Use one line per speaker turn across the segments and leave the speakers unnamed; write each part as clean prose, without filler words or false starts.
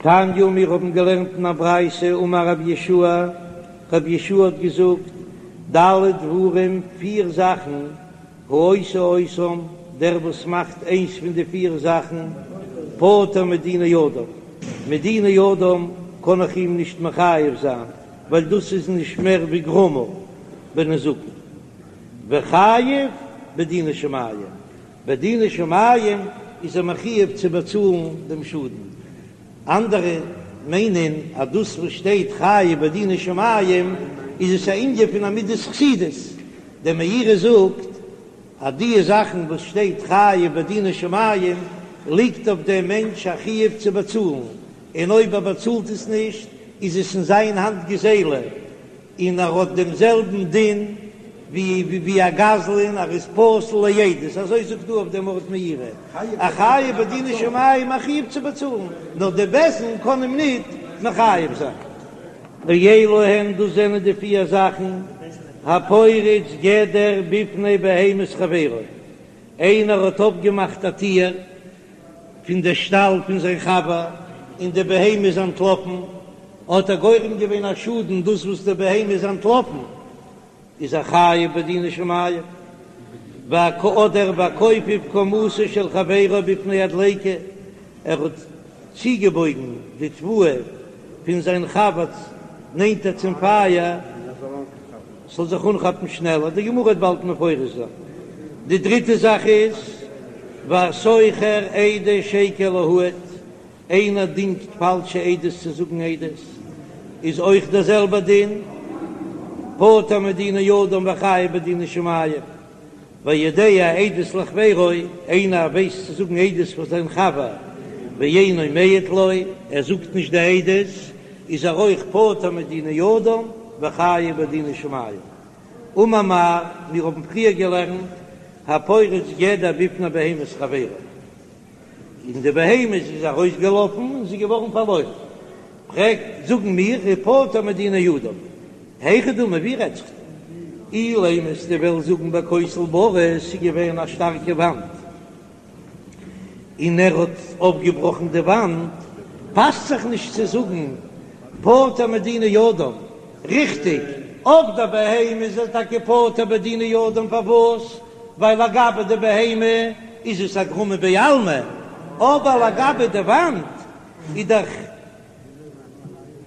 תניא, מיר האבן געלערנט אין א ברייתא, אמר רבי יהושע, רבי יהושע האט געזאגט, ד' דברים, פיר זאכן, העושה אותם, דער וואס מאכט איינס פון די פיר זאכן, פטור מדיני אדם, מדיני אדם קען איך אים נישט מחייב זיין, ווייל דאס איז נישט מער ווי גרמא בנזקין, וחייב בדיני שמים, בדיני שמים איז ער מחויב צו באצאלן דעם שאדן, אנדערע מיינען אז דאס וואס שטייט חייב בדיני שמים איז עס א ענין פון א מידת חסידות, דער מאירי זאגט אז די זאכן וואס שטייט חייב בדיני שמים ליגט אויף דעם מענטש א חיוב צו באצאלן, און אויב ער באצאלט עס נישט איז עס אין זיין האנט גזילה, און ער האט דעם זעלבן דין ווי א גזלן, ער איז פסול לעדות, אזוי זאגט דא אויף דעם ארט מאירי, א חייב בדיני שמים א חיוב צו באצאלן, נאר די בית דין קען אים ניט מחייב זיין. ואלו הן, דאס זענען די פיר זאכן, הפורץ גדר בפני בהמת חברו, איינער האט אויפגעמאכט א טיר פון די שטאל פון זיין חבר און די בהמה איז אנטלאפן, האט ער גורם געווען א שאדן דאס וואס די בהמה איז אנטלאפן, איז ער חייב בדיני שמים, אדער והכופף קומתו של חברו בפני הדליקה, ער האט צוגעבויגן די תבואה פון זיין חבר נענטער צום פייער ס'זאל זיך אנכאפן שנעלער, די גמרא וועט באלד מפרש זיין. די דריטע זאך איז והשוכר עדי שקר להעיד, איינער דינגט פאלשע עדות צו זאגן עדות, איז אויך דער זעלבער דין, פטור מדיני אדם וחייב בדיני שמים. והיודע עדות לחבירו, איינער ווייסט צו זאגן עדות פאר זיין חבר, ואינו מעיד לו, ער זאגט נישט די עדות, איז ער אויך פטור מדיני אדם וחייב בדיני שמים. אמר מר, מיר האבן פריער געלערנט, הפורץ גדר בפני בהמת חברו. און די בהמה איז ארויסגעלאפן און זי איז געווארן פארלוירן. פרעגט, זאגן מיר, איז פטור מדיני אדם, היכי דמי, ווי רעדט זיך דא? אילימא אז דו וועסט זאגן בכותל בריא, ס'איז געווען א שטארקע וואנט און ער האט אויפגעבראכן די וואנט, פאסט זיך נישט צו זאגן פטור מדיני אדם, ריכטיג, אויף די בהמה איז ער טאקע פטור בדיני אדם, פארוואס? ווייל לגבי די בהמה איז עס א גרמא בעלמא, אבער לגבי די וואנט איז דאך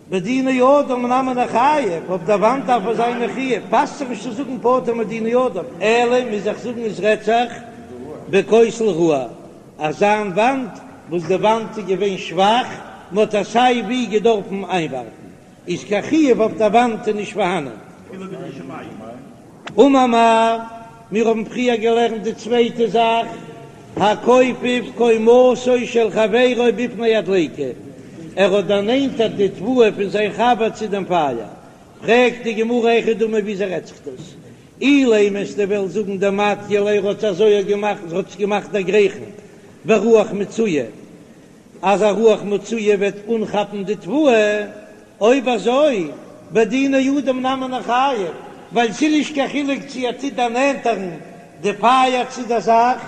בדיני אדם נמי ניחייב, אויף די וואנט דארף ער זיין מחויב, פאסט זיך נישט צו זאגן פטור מדיני אדם, אלא מוז איך זאגן עס רעדט זיך בכותל רעוע, אזא וואנט וואס די וואנט איז געווען שוואך, מען האט עס סיי ווי געדארפן איינווארפן. איז קיין חיוב אויף דער וואנט איז נישט פארהאנען. אמר מר, מיר האבן פריער געלערנט די צווייטע זאך, הכופף קומתו של חברו בפני הדליקה, ער האט דערנענטערט די תבואה פון זיין חבר צו דעם פייער, פרעגט די גמרא היכי דמי וויאזוי רעדט זיך דאס? אילימא אז דו וועסט זאגן דמטיא ליה ער האט אזוי געמאכט, ער האט עס געמאכט דערגרייכן ברוח מצויה, אז א רוח מצויה וועט אנכאפן די תבואה, אויב אזוי בדיני אדם נמי ניחייב, ווייל ס'איז נישט קיין חילוק צו ער טוט דערנענטערן די פייער צו דער זאך,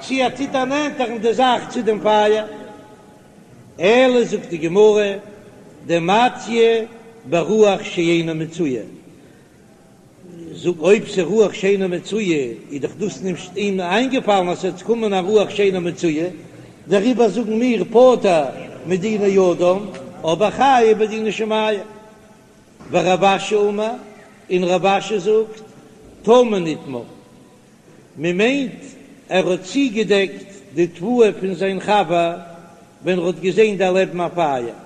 צו ער טוט דערנענטערן די זאך צו דעם פייער. אלא זאגט די גמרא, דמטיא ברוח שאינה מצויה, זאג, אויב ס'איז רוח שאינה מצויה, איז דאך דאס נישט אים איינגעפאלן אז ס'וועט קומען א רוח שאינה מצויה, דעריבער זאגן מיר פטור מדיני אדם, אבער חייב בדיני שמים. ורב אשי אמר, און רב אשי זאגט, טמון איתמר, מ'מיינט ער האט צוגעדעקט די תבואה פון זיין חבר ווען ער האט געזען דערלעבן א פייער.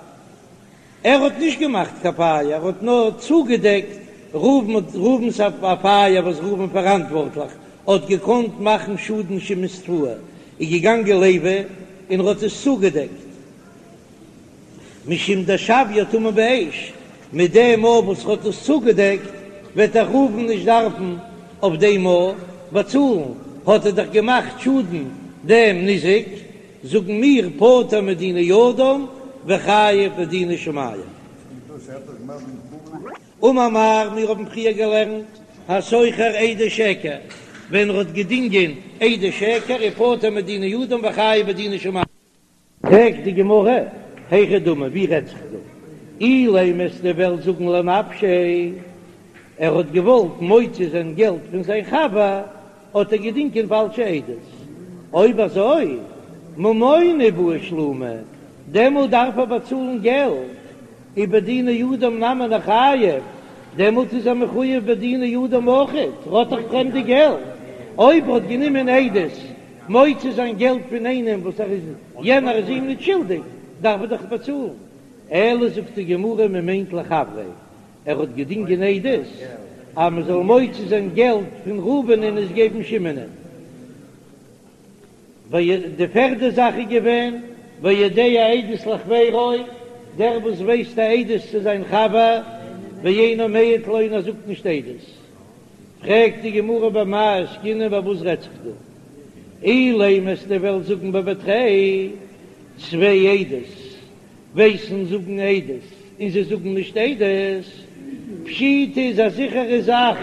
ער האט נישט געמאכט קיין פייער, ער האט נאר צוגעדעקט ראובן, ראובן'ס א פייער וואס ראובן פאראנטווארטליך האט געקאנט מאכן שאדן שמעון'ס תבואה, איז געגאנגען לוי און ער האט עס צוגעדעקט משום דשויה טמון באש, מיט דעם מאל וואס ער האט עס צוגעדעקט וועט דאך ראובן נישט דארפן אויף דעם מאל באצאלן, האט ער דאך געמאכט שאדן דעם ניזק. זאגן מיר פטור מדיני אדם וחייב בדיני שמים. אמר מר, מיר האבן פריער געלערנט השוכר עדי שקר, ווען ער האט געדינגען עדי שקר איז פטור מדיני אדם וחייב בדיני שמים. פרעגט די גמרא, היכי דמי, ווי רעדט זיך דא? אילימא וועסטו וועלן זאגן לנפשיה, ער האט געוואלט מוציא זיין געלט פון זיין חבר, האט ער געדינגען פאלשע עדות. אויב אזוי, ממונא בעי שלומי, דעמאלט דארף ער באצאלן געלט, ובדיני אדם נמי ניחייב, דעמאלט איז ער מחויב בדיני אדם אויכעט, ער האט דאך פרעמדע געלט, אויב ער האט גענומען עדות מוציא זיין געלט פון איינעם וואס ער איז יענער איז אים נישט שולדיג, דארף ער דאך באצאלן. אלא זאגט די גמרא מען מיינט לחבריה, ער האט געדינגען עדות אז מען זאל מוציא זיין געלט פון ראובן און עס געבן שמעונ'ען. די פערדע זאך איז געווען והיודע עדות לחבירו, דער וואס ווייסט א עדות צו זיין חבר, ואינו מעיד לו און ער זאגט נישט עדות. פרעגט די גמרא במאי עסקינן ביי וואס רעדט זיך דא? אילימא וועסטו וועלן זאגן בבי תרי, צוויי עדות ווייסן זאגן עדות און זיי זאגן נישט עדות, פשיטא איז א זיכערע זאך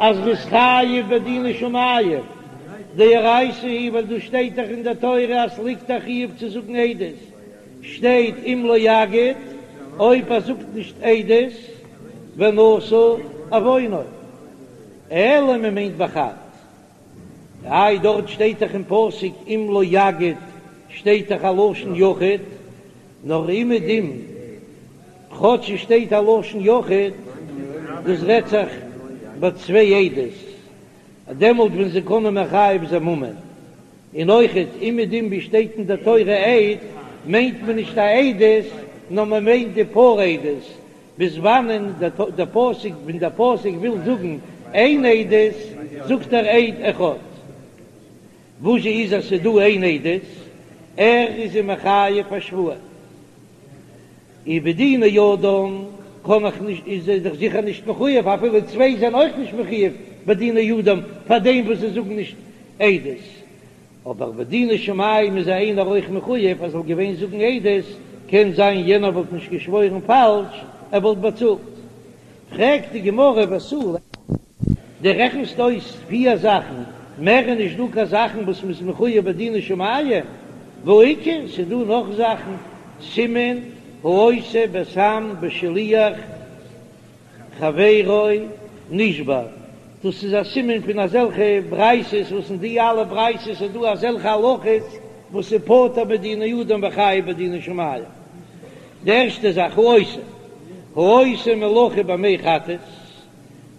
אז מ'איז חייב בדיני שמים, דאורייתא היא ווייל דא שטייט דאך אין די תורה אז ס'ליגט א חיוב צו זאגן עדות, שטייט אם לא יגיד, אויב ער זאגט נישט עדות, ונשא עוונו, אלא מ'מיינט בחד. איי דארט שטייט דאך אין פסוק אם לא יגיד שטייט דאך א לשון יחיד, נאר אומעדום כאטש עס שטייט א לשון יחיד, דאס רעדט זיך ביי צוויי עדות, דעמאלט ווען זיי קענען מחייב זיין ממון, און אויכעט אומעדום ווי שטייט אין די תורה עד מיינט מען נישט א עדות נאר מען מיינט די פאר עדות, ביז וואנען דער פסוק, ווען דער פסוק וויל זאגן איין עדות, זאגט ער עד אחד. וואס זשע איז אז ס'איז דא איין עדות, ער איז אים מחייב א שבועה. ובדיני אדם קען איך נישט, איז ער דאך זיכער נישט מחויב, אפילו צוויי זענען אויך נישט מחויב בדיני אדם פאר דעם וואס זיי זאגן נישט עדות. אבער בדיני שמים איז איינער אויך מחויב ער זאל געווען זאגן עדות, קען זיין יענער וואלט נישט געשוואוירן פאלש, ער וואלט באצאלט. פרעגט די גמרא ותו לא, דו רעכנסט אויס פיר זאכן, מער איז נישט דא קיין זאכן וואס מ'איז מחויב בדיני שמים, והאיכא, ס'איז דא נאך זאכן, סימן העושה בסם בשליח חברו נשבר, דאס איז א סימן פון אזעלכע ברייתות וואס אין די אלע ברייתות איז דא אזעלכע הלכות וואס איז פטור מדיני אדם וחייב בדיני שמים. די ערשטע זאך העושה, העושה מלאכה במי חטאת,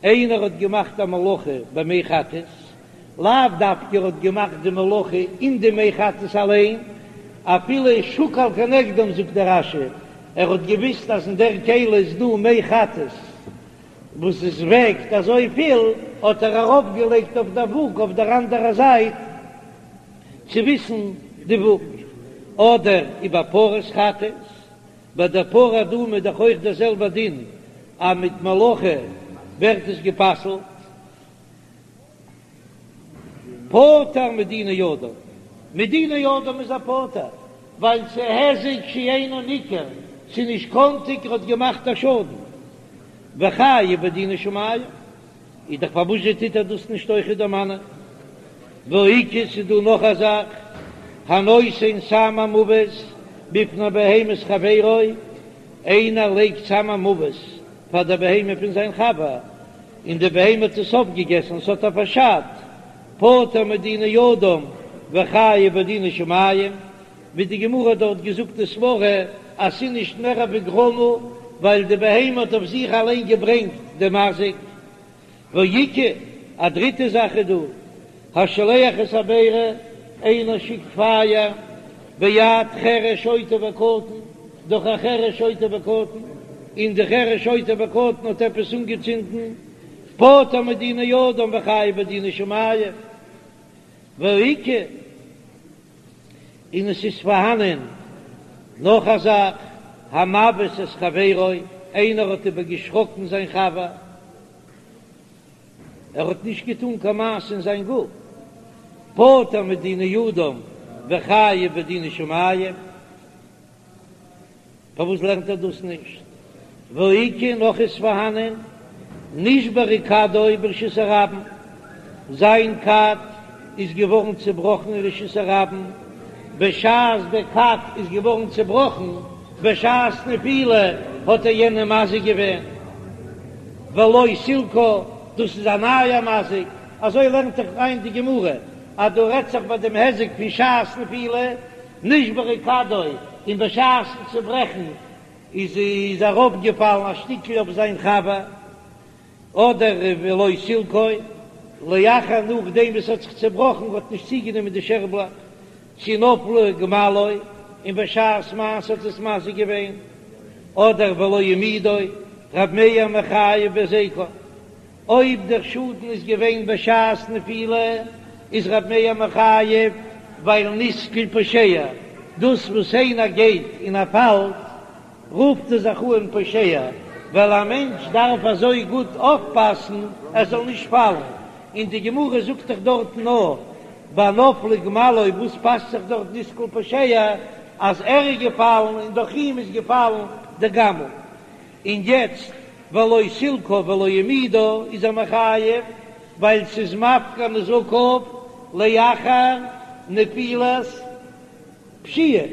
איינער האט געמאכט א מלאכה במי חטאת, לאו דווקא ער האט געמאכט די מלאכה אין די מי חטאת אליין, אפילו שקל כנגדם זאגט דער רש"י, ער האט געוויסט אז אין דער כלי איז דא מי חטאת וואס עס וועגט אזויפיל, האט ער ארויפגעלייגט אויף דער וואג אויף דער אנדערע זייט צו וויסן די וואג, אדער ובפרת חטאת, ביי דער פרה אדומה איז דאך אויך דער זעלבער דין אז מיט מלאכה ווערט עס גע'פסל'ט. פטור מדיני אדם, מדיני אדם איז ער פטור, ווייל ס'איז היזק שאינו ניכר, ס'איז נישט קאנטיג ער האט געמאכט א שאדן, וחייב בדיני שמים, איז דאך פארוואס זשע טוט ער דאס נישט אויכעט דערמאנען? והאיכא ס'איז דא נאך א זאך, הנותן סם המוות בפני בהמת חברו, איינער לייגט סם המוות פאר דער בהמה פון זיין חבר, און די בהמה האט עס אויפגעגעסן, ס'האט איר פארשאדט, פטור מדיני אדם וחייב בדיני שמים, ווי די גמרא האט דארט געזאגט די סברא אז ס'איז נישט מער ווי גרמא, ווייל די בהמה האט אויף זיך אליין געברענגט די מזיק. והאיכא, א דריטע זאך איז דא, השולח את הבערה, איינער שיקט פייער, ביד חרש שוטה וקטן, דורך א חרש שוטה וקטן, און די חרש שוטה וקטן האט עפעס אנגעצינדן, פטור מדיני אדם וחייב בדיני שמים. והאיכא, און עס איז פארהאנען נאך א זאך, המבעית את חברו, איינער האט איבערגעשראקן זיין חבר, ער האט נישט געטאן קיין מעשה אין זיין גוף, פטור מדיני אדם וחייב בדיני שמים, פארוואס לערנט ער דאס נישט? והאיכא נאך איז פארהאנען נשברה כדו ברשות הרבים, זיין כד איז געווארן צעבראכן אין רשות הרבים, בשעת דער כד איז געווארן צעבראכן. בשעת נפילה האט ער יענעם מזיק געווען, ולא סילקה, דאס איז א נייע מזיק, אזוי לערנט זיך איין די גמרא, אז דא רעדט זיך ביי דעם היזק פון שעת נפילה, נשברה כדו, און בשעת'ן צוברעכן איז איז אראפגעפאלן א שטיקל אויף זיין חבר. אדער ולא סילקו, לאחר נאכדעם וואס ס'האט זיך צעבראכן האט נישט צוגענומען די שערבלאך, צי נפלה גמלו, און בשעת מעשה האט עס מזיק געווען, אדער ולא העמידו, רב מאיר מחייב בהזיקו, אויב דער שאדן איז געווען בשעת נפילה איז רב מאיר מחייב ווייל נתקל פושע, דאס וואס איינער גייט און ער פאלט רופט ער זיך אן פושע, ווייל א מענטש דארף אזוי גוט אויפפאסן ער זאל נישט פאלן, און די גמרא זאגט דאך דארטן נאר ביי נפלה גמלו, וואס פאסט זיך דארט נתקל פושע אז ער איז געפאלן און דורך אים איז געפאלן די גמל, און יעצט ולא סילקה ולא העמידה איז ער מחייב ווייל ס'איז מפקיר נזקיו לאחר נפילת פשיעה.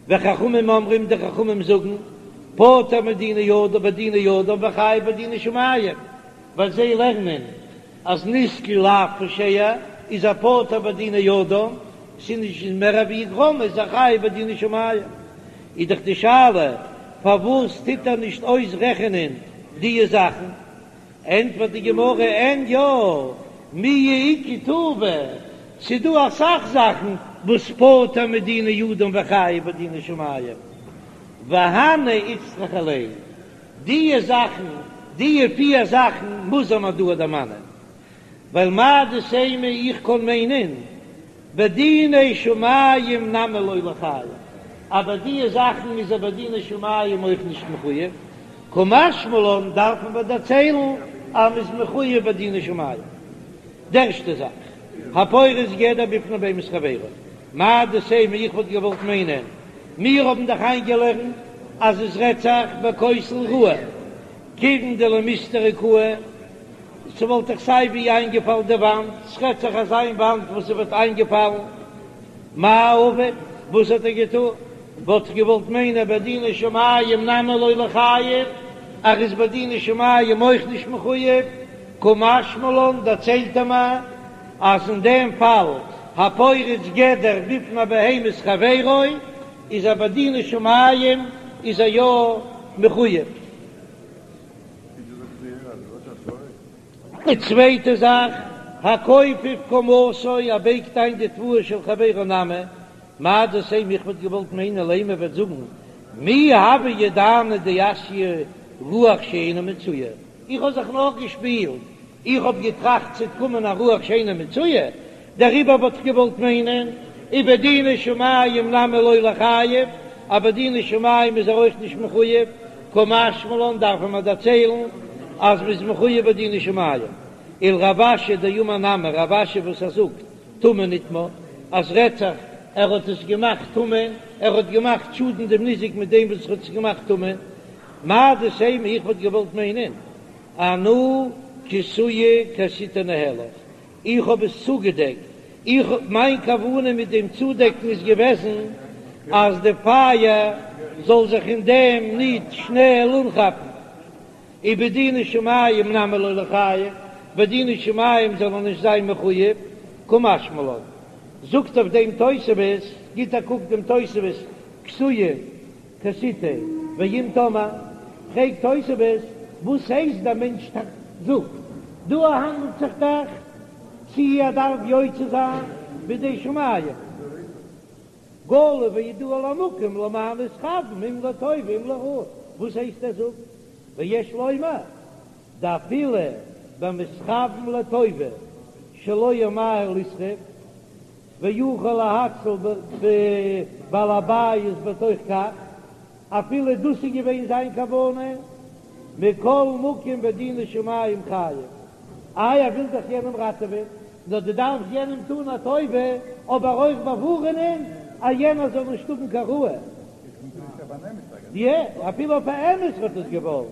וחכמים אומרים, די חכמים זאגן, פטור מדיני אדם בדיני אדם וחייב בדיני שמים, ווייל זיי לערנען אז נתקל לאו פושע איז ער פטור בדיני אדם, ס'איז נישט מער ווי גרמא איז ער חייב בדיני שמים. איז דאך די שאלה פארוואס טוט ער נישט אויסרעכענען דיע זאכן? ענטפערט די גמרא, אין יא, מיהא איכא טובא, ס'דא אסאך זאכן וואס פטור מדיני אדם וחייב בדיני שמים, והני איצטריכא ליה, דיע זאכן, דיע פיר זאכן מוז מען דא דערמאנען, ווייל מהו דתימא איך קען מיינען בדיני שמים נמי לא ליחייב, אבער דיע זאכן איז ער בדיני שמים אויך נישט מחויב, קא משמע לן דארף מען דערציילן אז מ'איז מחויב בדיני שמים. די ערשטע זאך, הפורץ גדר בפני בהמת חברו, מהו דתימא איך וואלט געוואלט מיינען, מיר האבן דאך איינגעלערנט אז עס רעדט זיך בכותל רעוע, כיוון דלמיסתרא קאי, ס'וואלט דאך סיי ווי איינגעפאלן די וואנט, ס'רעדט זיך אזא איין וואנט וואס ס'וואלט איינגעפאלן, מאי עביד, וואס האט ער געטון? וואלט איך געוואלט מיינען בדיני שמים נמי לא ליחייב, ער איז בדיני שמים אויך נישט מחויב, קא משמע לן דערציילט ער מיר אז אין דעם פאל הפורץ גדר בפני בהמת חברו איז ער בדיני שמים איז ער יא מחויב. די צווייטע זאך, הכופף קומתו, ער בייגט איין די תבואה של חברו נמי, מהו דתימא איך וואלט געוואלט מיינען לימא וועט זאגן מי הוה ידענא דאתיא רוח שאינה מצויה, איך האב זיך נאר געשפילט, איך האב געטראכט ס'וועט קומען א רוח שאינה מצויה, דעריבער וואלט איך געוואלט מיינען ובדיני שמים נמי לא ליחייב, אז בדיני שמים איז ער אויך נישט מחויב, קא משמע לן דארף מען דערציילן אז מ'איז מחויב בדיני שמים, ולרב אשי דאמר נמי רב אשי וואס ער זאגט טמון נטמא, אז רעדט זיך ער האט עס געמאכט טמון, ער האט געמאכט שאדן דעם ניזק מיט דעם וואס ער האט עס געמאכט טמון, מהו דתימא איך וואלט געוואלט מיינען אנא כסויי כסיתיה ניהלך, איך האב עס צוגעדעקט, איך מיין כוונה מיט דעם צודעקן איז געוועזן אז די פייער זאל זיך אין דעם ניט שנעל אנכאפן, ובדיני שמים נמי לא ליחייב, בדיני שמים זאל ער נישט זיין מחויב, קא משמע לן. זאגט אויף דעם תוספות, גיט א קוק דעם תוספות, כסויי כסיתיה, ואם תאמר, פרעגט תוספות, וואס הייסט דער מענטש זאגט, דא האנדלט זיך דאך צי ער דארף יוצא זיין בידי שמים, גלוי וידוע למקום למה נתכוון אם לטובה אם לרעה, וואס הייסט ער זאגט, ויש לומר דאפילו במתכוון לטובה שלא ימהר לשרוף ויוכל להציל בעל הבית בתוך כך, אפילו דאס איז געווען זיין כוונה, מכל מקום בדיני שמים חייב, איי ער וויל דאך יענעם ראטעווען, נאר דו דארפסט יענעם טון א טובה, אבער אויך באווארענען אז יענער זאל נישט האבן קיין רעה. יא, אפילו אויף א אמת האט עס געוואלט.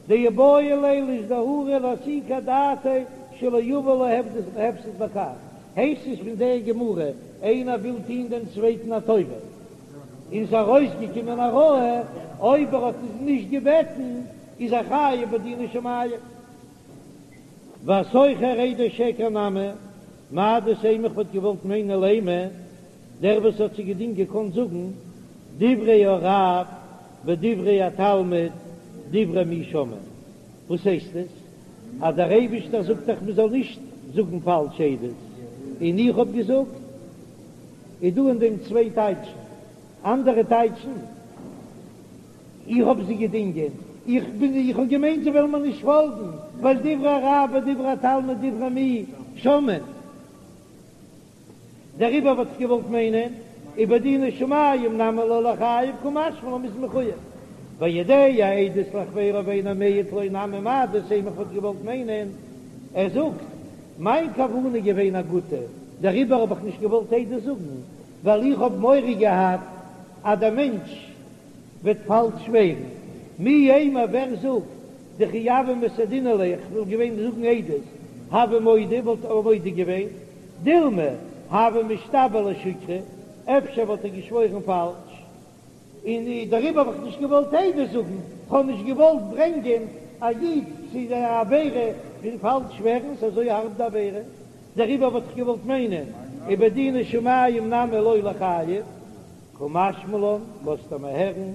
דאיבעי ליה לאיזדהורי לאסוקי אדעתיה שלא יבא לו הפסד בכך, הייסט עס פון דער גמרא, איינער וויל טון דעם צווייטן א טובה. און ס'איז ארויסגעקומען א רועה, אויב ער האט עס נישט געבעטן איז ער חייב בדיני שמים. והשוכר עדי שקר נמי, מהו דתימא איך וואלט געוואלט מיינען לימא, דער וואס האט זיי געדינגט געקאנט זאגן דברי הרב ודברי התלמיד דברי מי שומעין, וואס הייסט עס אז דער אייבישטער זאגט דאך מען זאל נישט זאגן פאלש עדות, און איך האב געזאגט? איז דא אין דעם צוויי טייטשן, אנדערע טייטשן, איך האב זיי געדינגען, איך בין איך האב געמיינט זיי וועלן מיר נישט פאלגן, ווייל דברי הרב ודברי התלמיד דברי מי שומעין. דעריבער וואלט איך געוואלט מיינען, ובדיני שמים נמי לא ליחייב קא משמע לן מ'איז מחויב. והיודע עדות לחבירו ואינו מעיד לו נמי מהו דתימא איך וואלט געוואלט מיינען, ער זאגט, מיין כוונה איז געווען א גוטע, דעריבער האב איך נישט געוואלט עדות זאגן, ווייל איך האב מורא געהאט אז דער מענטש וועט פאלש שווערן. מי יימר ווער זאגט דכי הוה מסהדינא ליה איך וואלט געווען זאגן עדות, הוה מודה וואלט ער מודה געווען, דילמא הוה משתבע לשוקרא, אפשר וואלט ער געשוואוירן פאלש, און דעריבער האב איך נישט געוואלט עדות זאגן, כ'האב נישט געוואלט ברענגען א איד צו די עבירה פון פאלש שווערן, ס'איז אזוי הארב די עבירה, דעריבער וואלט איך געוואלט מיינען, ובדיני שמים נמי לא ליחייב. קא משמע לן, לאזט ער מיר הערן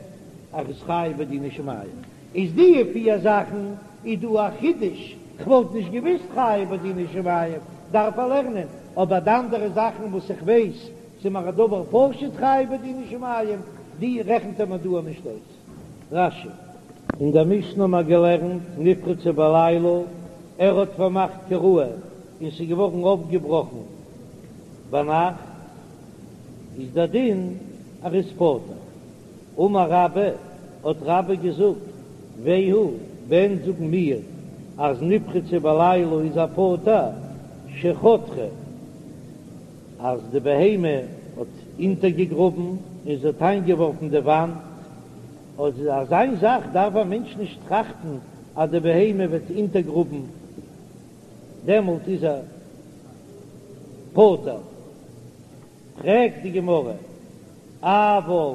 אז ער איז חייב בדיני שמים. איז די פיר זאכן איז דא א חידוש, כ'וואלט נישט געוויסט חייב בדיני שמים דארף ער לערנען, אבער די אנדערע זאכן וואס איך ווייס ס'איז מיר א דבר פשוט חייב בדיני שמים, די רעכנט ער מיר דא נישט אויס. רש"י. אין דער משנה האבן מיר געלערנט נפרצה בלילה, ער האט פארמאכט כראוי און ס'איז געווארן אויפגעבראכן ביינאכט, איז דער דין ער איז פטור. אמר רבה, האט רבה געזאגט, והוא, ווען זאגן מיר אז נפרצה בלילה איז ער פטור, שחתרה, אז די בהמה האט אונטערגעגראבן און זי האט איינגעווארפן די וואנט, אז אזא זאך דארף א מענטש נישט טראכטן אז די בהמה וועט אונטערגראבן, דעמאלט איז ער פטור. פרעגט די גמרא, אבל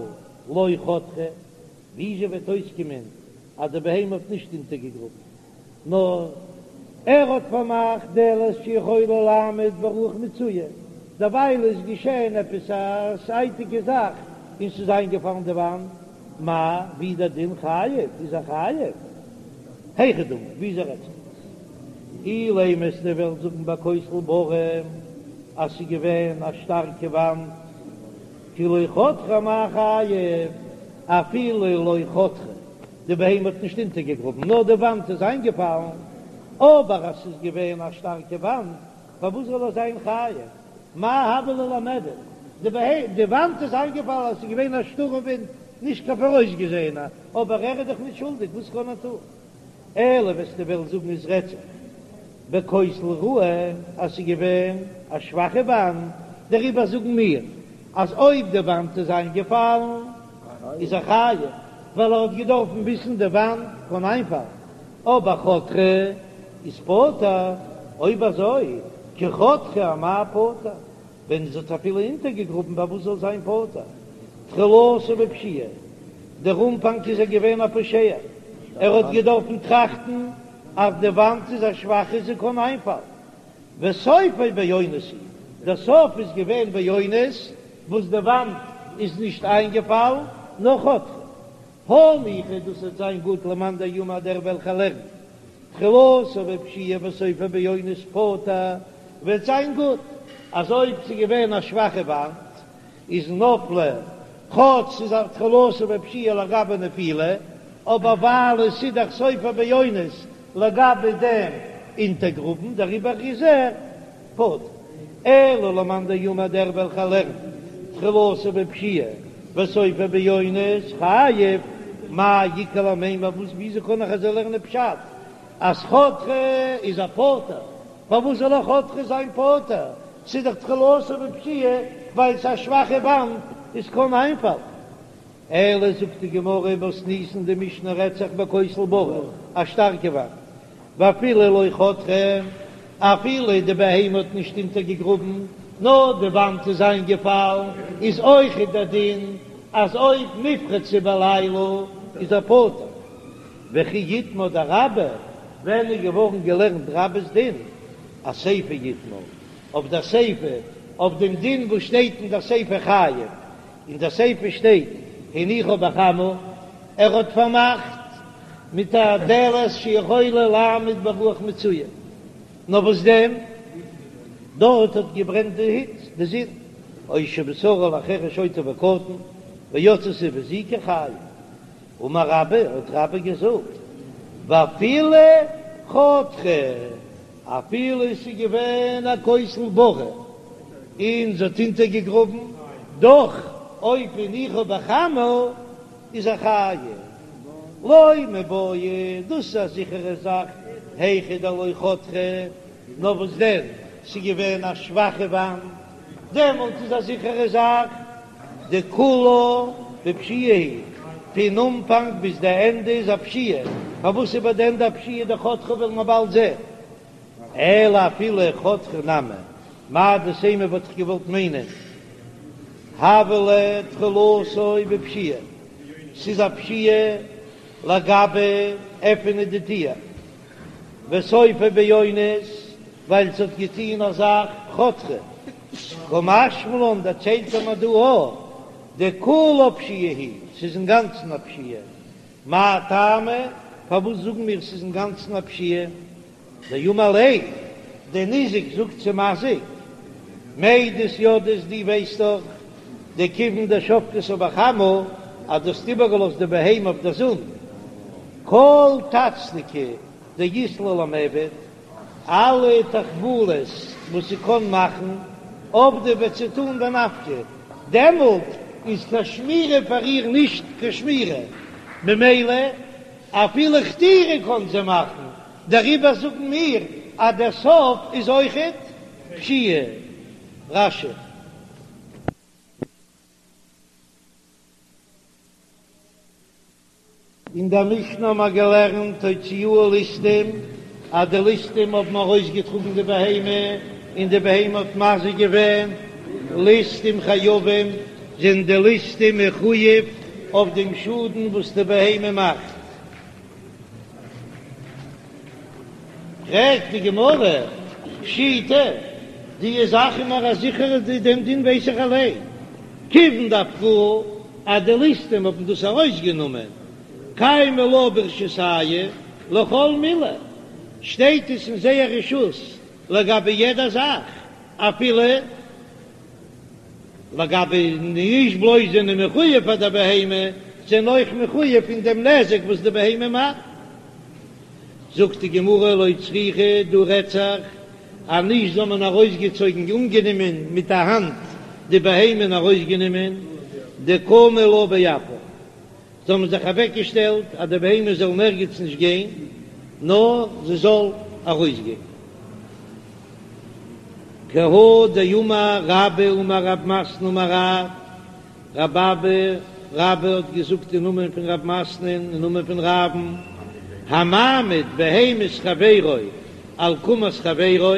לא חתרה, וויאזוי וועט אויסקומען אז די בהמה האט נישט אונטערגעגראבן, נאר ער האט פארמאכט דלת שיכולה לעמוד ברוח מצויה, דערווייל איז געשען עפעס א זייטיגע זאך און ס'איז איינגעפאלן די וואנט, מאי, ווי איז דער דין חייב? איז ער חייב? היכי דמי, וויאזוי רעדט זיך דאס? אילימא וועסטו וועלן זאגן בכותל בריא אז ס'איז געווען א שטארקע וואנט, כי לא חתרה אמאי חייב, אפילו לא חתרה, די בהמה האט נישט אונטערגעגראבן נאר די וואנט איז איינגעפאלן, אבער אז ס'איז געווען א שטארקע וואנט פארוואס זאל ער זיין חייב? מאי הוה ליה למיעבד? די וואנט איז איינגעפאלן אז ס'איז געווען א שטורעם ווינט, נישט קיין פאראויסגעזעענע, אבער ער איז דאך נישט שולדיג, וואס קען ער טון? אלא וועסטו וועלן זאגן עס רעדט זיך בכותל רעוע אז ס'איז געווען א שוואכע וואנט, דעריבער זאגן מיר אז אויב די וואנט איז איינגעפאלן איז ער חייב, ווייל ער האט געדארפן וויסן די וואנט קען איינפאלן, אבער חתרה איז פטור, אויב אזוי כי חתרה אמאי פטור, ווען זי האט אפילו אונטערגעגראבן פארוואס זאל זיין פטור? תחילתו בפשיעה, דער אנפאנג איז ער געווען א פושע, ער האט געדארפן טראכטן אז די וואנט איז א שוואכע זי קען איינפאלן, וסופו באונס הוא, דער סוף איז געווען באונס וואס די וואנט איז נישט איינגעפאלן נאר חתרה. הניחא דאס וועט זיין גוט למאן דאמר דער וועלכער לערנט תחילתו בפשיעה וסופו באונס פטור וועט זיין גוט אז אויב ס'איז געווען א שוואכע וואנט איז נפלה כאטש ס'איז א תחילתו בפשיעה לגבי נפילה אבער ווייל עס איז דאך סופו באונס לגבי דעם אונטערגראבן דעריבער איז ער פטור. אלא למאן דאמר דער וועלכער לערנט תחילתו בפשיעה וסופו באונס חייב, מאי איכא למימר וואס וויאזוי קען איך אזוי לערנען פשט אז חתרה איז ער פטור פארוואס זאל ער חתרה זיין פטור ס'איז דאך תחילתו בפשיעה ווייל ס'איז א שוואכע וואנט עס קען איינפאלן. אלא זאגט די גמרא מתניתין די משנה רעדט זיך בכותל בריא א שטארקע וואנט ואפילו לא חתרה אפילו די בהמה האט נישט אונטערגעגראבן נאר די וואנט איז איינגעפאלן איז אויכעט דער דין. אז אויב נפרצה בלילה איז ער פטור. וכי איתמר דרבה, ווען איז געווארן געלערנט רבה'ס דין? אסיפא איתמר, אויף דער סיפא, אויף דעם דין וואס שטייט אין דער סיפא חייב, אין דער סיפא שטייט הניחה בחמה, ער האט פארמאכט מיט א דלת שיכולה לעמוד ברוח מצויה, נאר וואס דען, דארט האט געברענט די היץ, די זון, או שמסרה לחרש שוטה וקטן, ויצתה והזיקה חייב. אמר רבה, האט רבה געזאגט, ואפילו חתרה, אפילו עס איז געווען א כותל בריא און זי האט אונטערגעגראבן, דאך אויב הניחה בחמה איז ער חייב. לא מיבעיא, דאס איז א זיכערע זאך, היכא דלא חתרה, נאר וואס דען, ס'איז געווען א שוואכע וואנט, דעמאלט איז א זיכערע זאך דכולה בפשיעה היא, פון אנפאנג ביז די ענדע איז א פשיעה, פארוואס איז ביי די ענדע א פשיעה דחתרה וועלן מיר באלד זען, אלא אפילו חתרה נמי, מהו דתימא וואלט איך געוואלט מיינען הוה ליה תחילתו בפשיעה, ס'איז א פשיעה לגבי עפענען די טיר, וסופו באונס, ווייל ס'האט געטוהן א זאך חתרה, קא משמע לן דערציילט ער מיר דא א דכולה פשיעה היא, ס'איז אינגאנצן א פשיעה, מאי טעמא פארוואס זאגן מיר ס'איז אינגאנצן א פשיעה, דאמר ליה, דער ניזק זאגט צום מזיק, מידעת ידעת דו ווייסט דאך דכיון דשבקתה בחמה אז דו האסט איבערגעלאזט די בהמה אויף דער זון, כל טצנקי דאית לה למיעבד, אלע תחבולות וואס זי קען מאכן, עבדה וועט זי טאן בנפקא, דעמאלט איז קיין שמירה פאר איר נישט קיין שמירה, ממילא אפילו חתירה קען זי מאכן, דעריבער זאגן מיר אז דער סוף איז אויכעט פשיעה. רש"י. אין דער משנה האבן מיר געלערנט הוציאוה ליסטים, אז די ליסטים האבן ארויסגעטראגן די בהמה, און די בהמה האט מזיק געווען, ליסטים חייבים, זענען די ליסטים מחויב אויף דעם שאדן וואס די בהמה מאכט. פרעגט די גמרא, פשיטא, די זאך איז מיר א זיכערע, דעם דין ווייס איך אליין, כיוון דאפקוה אז די ליסטים האבן דאס ארויסגענומען, קיימא לה ברשותייהו לכל מילי, שטייט עס אין זייער רשות לגבי יעדע זאך, אפילו לגבי נישט בלויז זענען מחויב פאר דער בהמה, זענען אויך מחויב פון דעם נזק וואס די בהמה מאכט. זאגט די גמרא לא צריכא, דא רעדט זיך אז נישט זיי האבן ארויסגעצויגן אנגענומען מיט א האנט די בהמה און ארויסגענומען, דקמו לה באפה, זיי האבן זיך אוועקגעשטעלט אז די בהמה זאל נערגעץ נישט גיין נאר זי זאל ארויסגיין. כי הא דאמר רבה אמר רב מתנה אמר רב, רב אבא רבה האט געזאגט אין נאמען פון רב מתנה'ן אין נאמען פון רב'ן, המעמיד בהמת חברו על קמת חברו,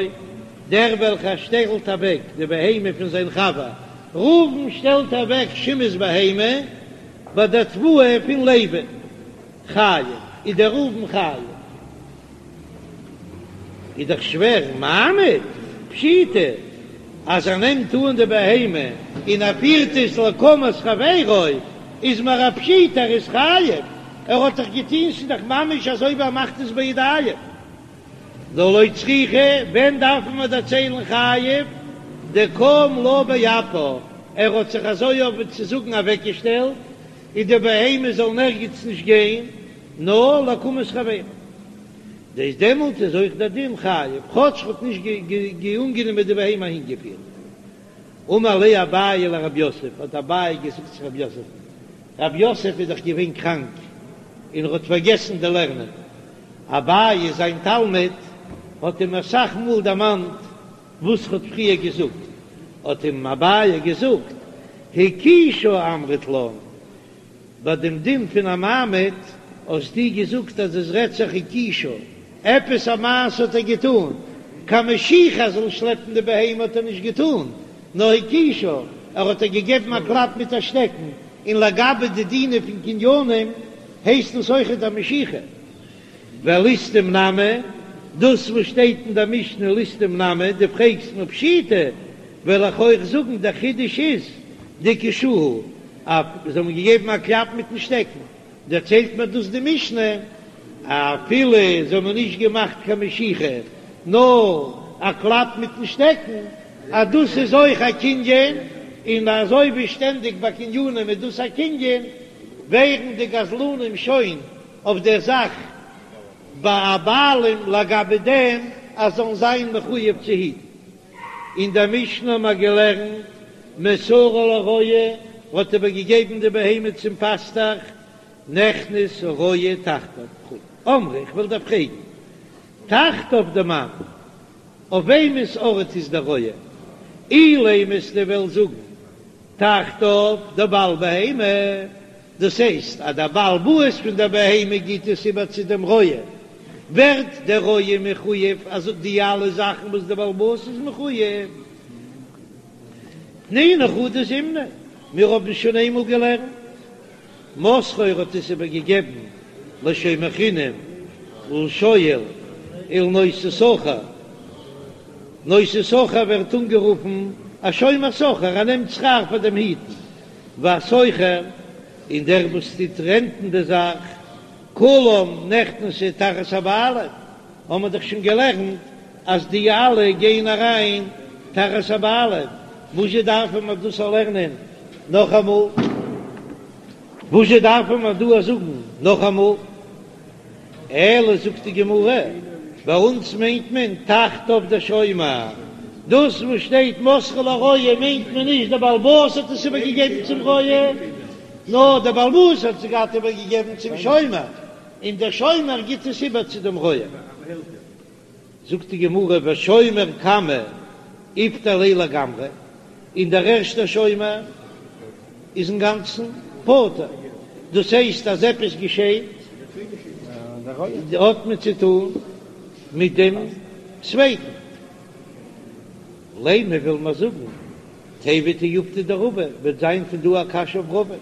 דער וועלכער שטעלט אוועק די בהמה פון זיין חבר, ראובן שטעלט אוועק שמעון'ס בהמה ביי דער תבואה פון לוי, חייב, איז דער ראובן חייב. איז דאך שווער, מעמיד, פשיטא, אז ער נעמט אן די בהמה און ער פירט עס לקמת חברו, איז מיר א פשיטא ער איז חייב, ער האט דאך געטון, ס'איז דאך ממש אזוי ווי ער מאכט עס בידיים. נאר לא צריכא, ווען דארפן מיר דערציילן חייב, דקם לה באפה, ער האט זיך אזוי אויף צו זאגן אוועקגעשטעלט, און די בהמה זאל נערגעץ נישט גיין, נאר לקמת חברו. דאס דעמאלט איז אויך דער דין חייב, כאטש ער האט נישט אנגענומען די בהמה אהינגעפירט. אמר ליה אביי לרב יוסף, האט אביי געזאגט צו רב יוסף'ן, רב יוסף איז דאך געווען קראנק און ער האט פארגעסן די לערנען, אביי זיין תלמיד האט אים אסאך מאל דערמאנט וואס ר'האט פריער געזאגט, האט אים אביי געזאגט, הכישה אמרת לן, ביי דעם דין פון א מעמיד האסטו געזאגט אז עס רעדט זיך הכישה, עפעס א מעשה האט ער געטאן, קיין משיכה זאל שלעפן די בהמה האט ער נישט געטאן, נאר הכישה, ער האט איר געגעבן א קלאפ מיט א שטעקן. און לגבי די דינים פון קנינים הייסט דאס אויכעט א משיכה. ולסטים נמי, דאס וואס שטייט אין דער משנה ליסטים נמי, דו פרעגסט מיר פשיטא, וועל איך אויך זאגן דער חידוש איז דהכישוהו, אז זיי האבן געגעבן א קלאפ מיטן שטעקן, דערציילט מיר דאס די משנה, אפילו זיי האבן נישט געמאכט קיין משיכה, נאר א קלאפ מיטן שטעקן, אז דאס איז אויך א קנין, און אזוי ווי שטענדיג ביי קנינים איז דאס א קנין, ווערן די גזלנים שוין אויף דער זאך בעלים לגבי דעם אז זאלן זיין מחויב צו היטן. אין דער משנה האבן מיר געלערנט, מסרה לרועה, האט איבערגעגעבן די בהמה צום פאסטעך, נכנס הרועה תחתיו וכו'. אמרי, איך וויל דיר פרעגן, תחתיו דמאן, אויף וועמענס ארט איז דער רועה? אילימא אז דו וועסט זאגן, תחתיו דבעל בהמה, דאס הייסט אז דער בעל הבית פון דער בהמה גיט עס איבער צו דעם רועה, ווערט דער רועה מחויב אז די אלע זאכן וואס דער בעל הבית איז מחויב. תנינא חדא זימנא, מיר האבן שוין איינמאל געלערנט, מסרו האט עס איבער געגעבן לשומר חינם ולשואל ולנושא שכר, נושא שכר ווערט אנגערופן א שומר שכר, ער נעמט שכר פאר דעם היטן, והשוכר, און דער וואס טוט רענטן די זאך, כולם נכנסו תחת הבעלים, האבן מיר דאך שוין געלערנט אז די אלע גייען אריין תחת הבעלים, וואזשע דארפן מיר דאס לערנען נאכאמאל? וואזשע דארפן מיר דא זאגן נאכאמאל? אלא זאגט די גמרא, ביי אונז מיינט מען תחתיו דשומר, דאס וואס שטייט מסרו לרועה מיינט מען נישט דער בעל הבית האט עס איבערגעגעבן צום רועה, נאר דער בעל הבית האט עס געהאט איבערגעגעבן צום שומר, און דער שומר גיט עס איבער צו דעם רועה. זאגט די גמרא ושומר קמא איפטר ליה לגמרי, און דער ערשטער שומר איז אינגאנצן פטור, דאס הייסט אז עפעס געשעט האט מען צו טון מיט דעם צווייטן. לימא וויל מען זאגן תיהוי תיובתא דרבא, וועט זיין פון דא א קשיא אויף רבא,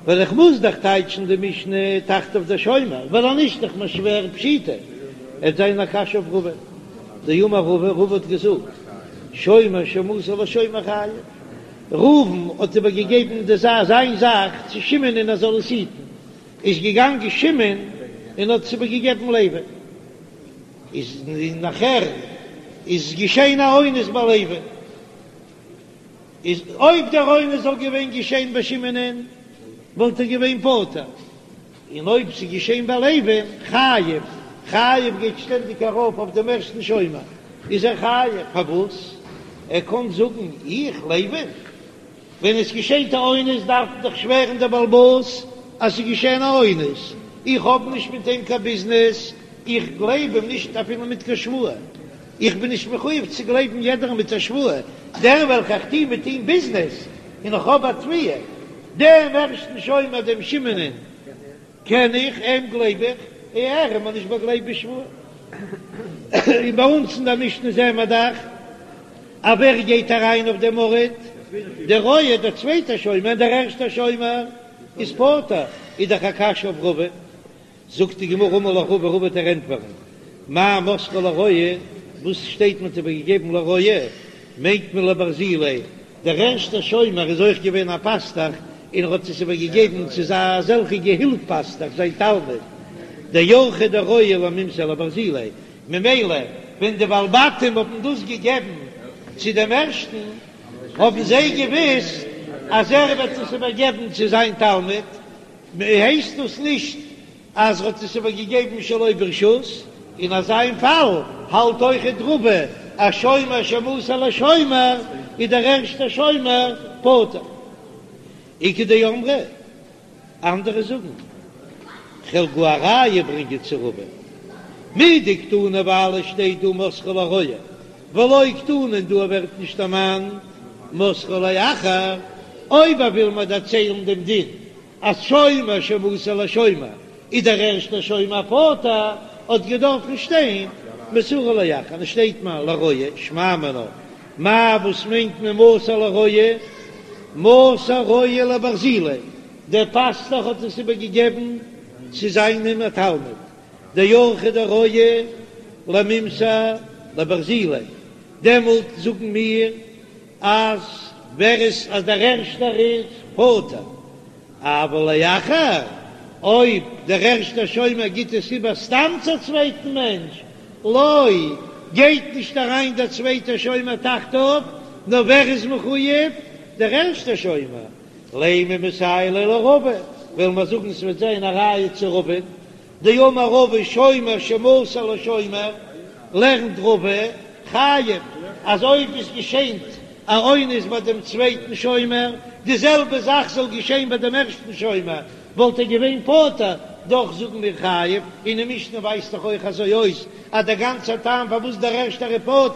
ווייל איך מוז דאך טייטשן די משנה תחתיו דשומר, ווייל אז נישט דאך מיר שווער פשיטא, עט זיין א קשיא אויף רבא, דאמר רבא, רבא האט געזאגט, שומר שמסר לשומר חייב, ראובן האט איבער געגעבן די זאך זיין זאך צו שמעון און ער זאל עס היטן, איז געגאנגען שמעון און האט עס איבער געגעבן לוי. איז נאכער איז געשען א אונס ביי לוי, איז אויב דער אונס זאל געווען געשען ביי שמעונ'ען וואלט ער געווען פטור, און אויב ס'איז געשען ביי לוי'ן חייב, חייב גייט שטענדיג ארויף אויף דעם ערשטן שומר, איז ער חייב, פארוואס? ער קען זאגן איך לוי ווען עס געשעט א אונס דארף דאך שווערן דער בעל הבית אז ס'איז געשען א אונס, איך האב נישט מיט אים קיין ביזנעס, איך גלייב אים נישט אפילו מיט קיין שבועה, איך בין נישט מחויב צו גלייבן יעדערן מיט א שבועה, דער וועלכע איך טוה מיט אים ביזנעס און איך האב א תביעה, דעם ערשטן שומר דעם שמעונ'ען קען איך, אים גלייב איך, ער איז מיר נישט באגלייבט בשבועה. און ביי אונז אין דער משנה זעען מיר דאך אז ווער גייט אריין אויף דעם ארט? דער רועה, דער צווייטער שומר, און דער ערשטער שומר איז פטור, איז דאך א קשיא אויף רבא. זאגט די גמרא אמר לך רבא, רבא וועט דיר ענטפערן, מאי מסרו לרועה, וואס שטייט מען האט איבערגעגעבן לרועה, מיינט מען לברזיליה, דער ערשטער שומר איז אויך געווען א פאסטעך און ער האט עס איבער געגעבן צו זיין אזעלכע געהילף פאסטעך זיין תלמיד דאורחיה דרועה למימסר לברזיליה, ממילא ווען די בעלי בתים האבן דאס געגעבן צו דעם ערשטן האבן זיי געוויסט אז ער וועט עס איבער געבן צו זיין תלמיד, הייסט דאס נישט אז ער האט עס איבער געגעבן שלא ברשות, אין אזא פאל האלט אויכעט רבא אז שומר שמסר לשומר איז דער ערשטער שומר פטור. איכא דאמרי, אנדערע זאגן, כ'וועל גאר א ראיה ברענגען צו רבא, מדקתני ווייל עס שטייט דא מסרו לרועה ולא קתני און דא ווערט נישט דערמאנט מסרו לאחר, אויב ער וויל מיר דערציילן דעם דין אז שומר שמסר לשומר איז דער ערשטער שומר פטור, האט געדארפן שטיין מסרו לאחר, און עס שטייט מיר לרועה, שמע מינה, מאי וואס מיינט מען מסר לרועה? מסר רועה לברזיליה, דער פאסטוך האט עס איבער געגעבן צו זיינעם א תלמיד, דאורחיה דרועה למימסר לברזיליה, דעמאלט זאגן מיר אז ווער עס אז דער ערשטער איז פטור, אבל לאחר, אויב דער ערשטער שומר גיט עס איבער סתם צו א צווייטן מענטש, לא, גייט נישט אריין דער צווייטער שומר תחתיו, נאר ווער איז מחויב? דער ערשטער שומר. לימא מסייע ליה לרבא, וועלן מיר זאגן ס'וועט זיין א ראיה צו רבא, דאמר רבא שומר שמסר לשומר, לערנט רבא, חייב, אז אויב עס געשענט א אונס ביי דעם צווייטן שומר, די זעלבע זאך זאל געשען ביי דעם ערשטן שומר, וואלט ער געווען פטור, דאך זאגן מיר חייב, און די משנה ווייזט דאך אויך אזוי אויס, אז דער גאנצער טעם פארוואס דער ערשטער איז פטור,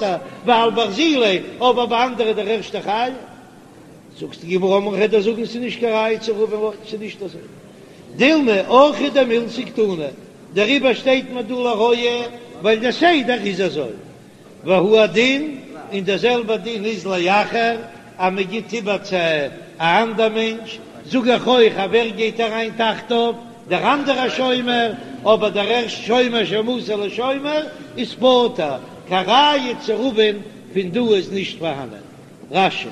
ווייל ברזיליה, אבער ביי אנדערע דער ערשטער חייב. זאגט די גמרא אמרי כ'וועל דיר זאגן ס'איז נישט קיין ראיה צו רבא'ן לא, ס'איז נישט אזוי. דילמא אורחא דמילתא קתני, דעריבער שטייט מיר דא לרועה ווייל דער סדר איז אזוי. והוא הדין, און דער זעלבער דין איז לאחר אז מען גיט איבער צו א אנדער מענטש, זאג איך אויך אז ווער גייט אריין תחתיו, דער אנדערער שומר, אבער דער ערשט שומר שמסר לשומר איז פטור, קיין ראיה צו רבא'ן פון דא איז נישט פארהאנען. רש"י.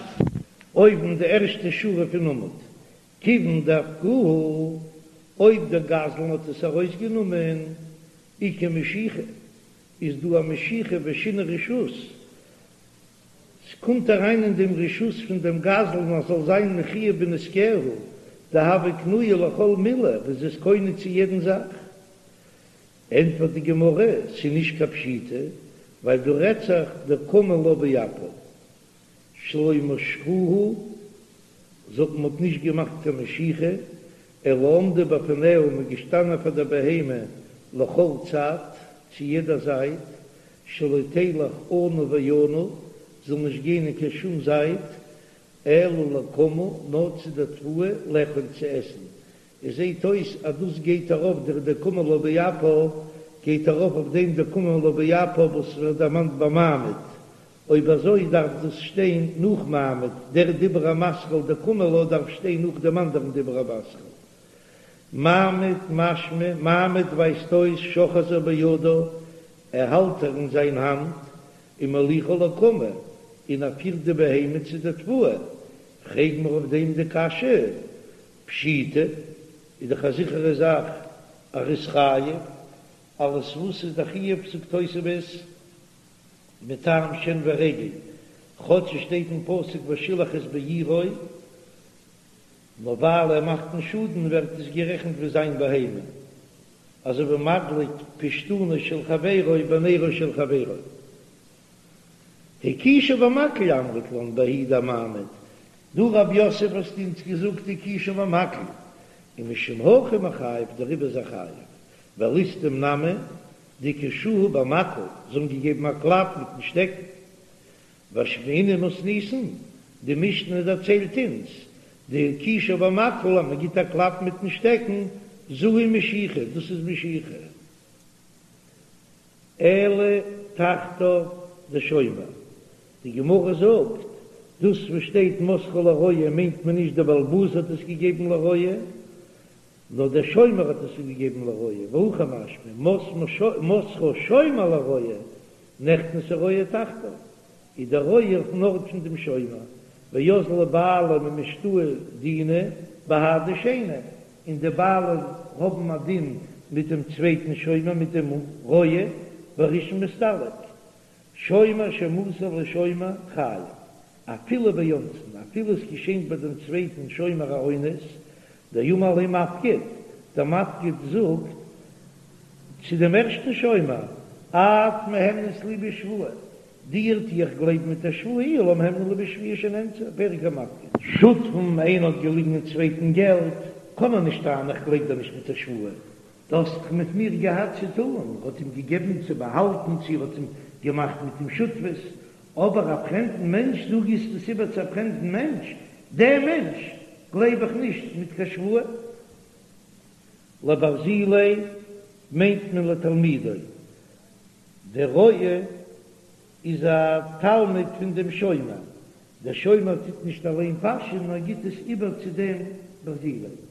אויבן די ערשטע שורה פון עמוד, כיוון דאפקוה, אויב דער גזלן האט עס ארויסגענומען, איכא משיכה, איז דא א משיכה ושינוי רשות, ס'קומט אריין אין דעם רשות פון דעם גזלן אז זאל זיין מחויב בנזקיה, דהוה קנויה לכל מילי, וואס איז קונה צו יעדן זאך. ענטפערט די גמרא, ס'איז נישט קיין פשיטא, ווייל דא רעדט זיך דקמו לה באפה שלא משכוה, זאגט מען האט נישט געמאכט קיין משיכה, אלא עמדו בפניה מ'איז געשטאנען פאר דער בהמה לכל צד, צו יעדע זייט, שלא תלך אנה ואנה, זאל נישט גיין אין קיין שום זייט, אלא לקמה, נאר צו דער תבואה, לאכול צו עסן. עס זעט אויס אז דאס גייט ארויף דער דקמו לה באפה גייט ארויף אויף דעם דקמו לה באפה וואס ווערט דערמאנט ביי מעמיד, אויב אזוי דארף דאס שטיין נאך מעמיד, דער דיבור המתחיל דקמו לה דארף שטיין נאך דעם אנדערן דיבור המתחיל. מעמיד משמע, מעמיד ווייזט אויס שאוחזה בידה, ער האלט איר אין זיין האנט, ומוליכה לקמה, און ער פירט די בהמה צו די תבואה, פרעג מיר אויף דעם די קשיא, פשיטא, איז דאך א זיכערע זאך אז ער איז חייב, אלעס וואס איז דער חיוב זאגט תוספות מטעם שן ורגל, כאטש עס שטייט אין פסוק ושילח את בעירו, נאר ווייל ער מאכט א שאדן ווערט עס גערעכנט ווי זיין בהמה, אזוי ווי מדליק פשתנו של חברו בנרו של חברו. הכישה במקל אמרת לן בההיא דמעמיד, דו רב יוסף האסט אונז געזאגט הכישה במקל, ומשום הכי מיחייב דעריבער איז ער חייב, ולסטים נמי דהכישוה במקל, זיי האבן געגעבן א קלאפ מיטן שטעקן. ואשמעינן מתניתין, די משנה דערציילט אונז, דהכישה במקל אז מען גיט א קלאפ מיטן שטעקן, זו היא משיכה, דאס איז משיכה. אלא תחתיו דשומר, די גמרא זאגט, דאס וואס שטייט מסרה לרועה מיינט מען נישט דער בעל הבית האט עס געגעבן לרועה, נאר דער שומר האט עס געגעבן לרועה, והכי משמע, מסרה שומר לרועה, נכנס הרועה תחתיו, איז דער רועה אויפן ארט פון דעם שומר, ואזלי בעלים ומשתעי דינא בהדי שני, און די בעלים האבן א דין מיט דעם צווייטן שומר מיט דעם רועה, והראשון מסתלק, שומר שמסר לשומר חייב, אפילו באונסין, אפילו עס געשענט ביי דעם צווייטן שומר א אונס, דאמר ליה מפקיד, דער מפקיד זאגט צו דעם ערשטן שומר, את מהימנת לי בשבועה, דיר טו איך גלייבן מיט א שבועה איהו לא מהימנא ליה בשבועה שנאנסה, פרק המפקיד. שותפים, איינער האט געליגן אין צווייטן געלט, קען ער נישט טענה'ן איך גלייב דיר נישט מיט א שבועה, דו האסט דאך מיט מיר געהאט צו טאן, ער האט אים געגעבן צו באהאלטן צו ער האט אים געמאכט מיט אים שותפות, אבער א פרעמדן מענטש, דו גיבסט עס איבער צו א פרעמדן מענטש, דעם מענטש גלייב איך נישט מיט קיין שבועה. לברזיליה מיינט מען לתלמידו, דער רועה איז א תלמיד פון דעם שומר. דער שומר טוט נישט אליין פאשען נאר גיט עס איבער צו דעם ברזילי.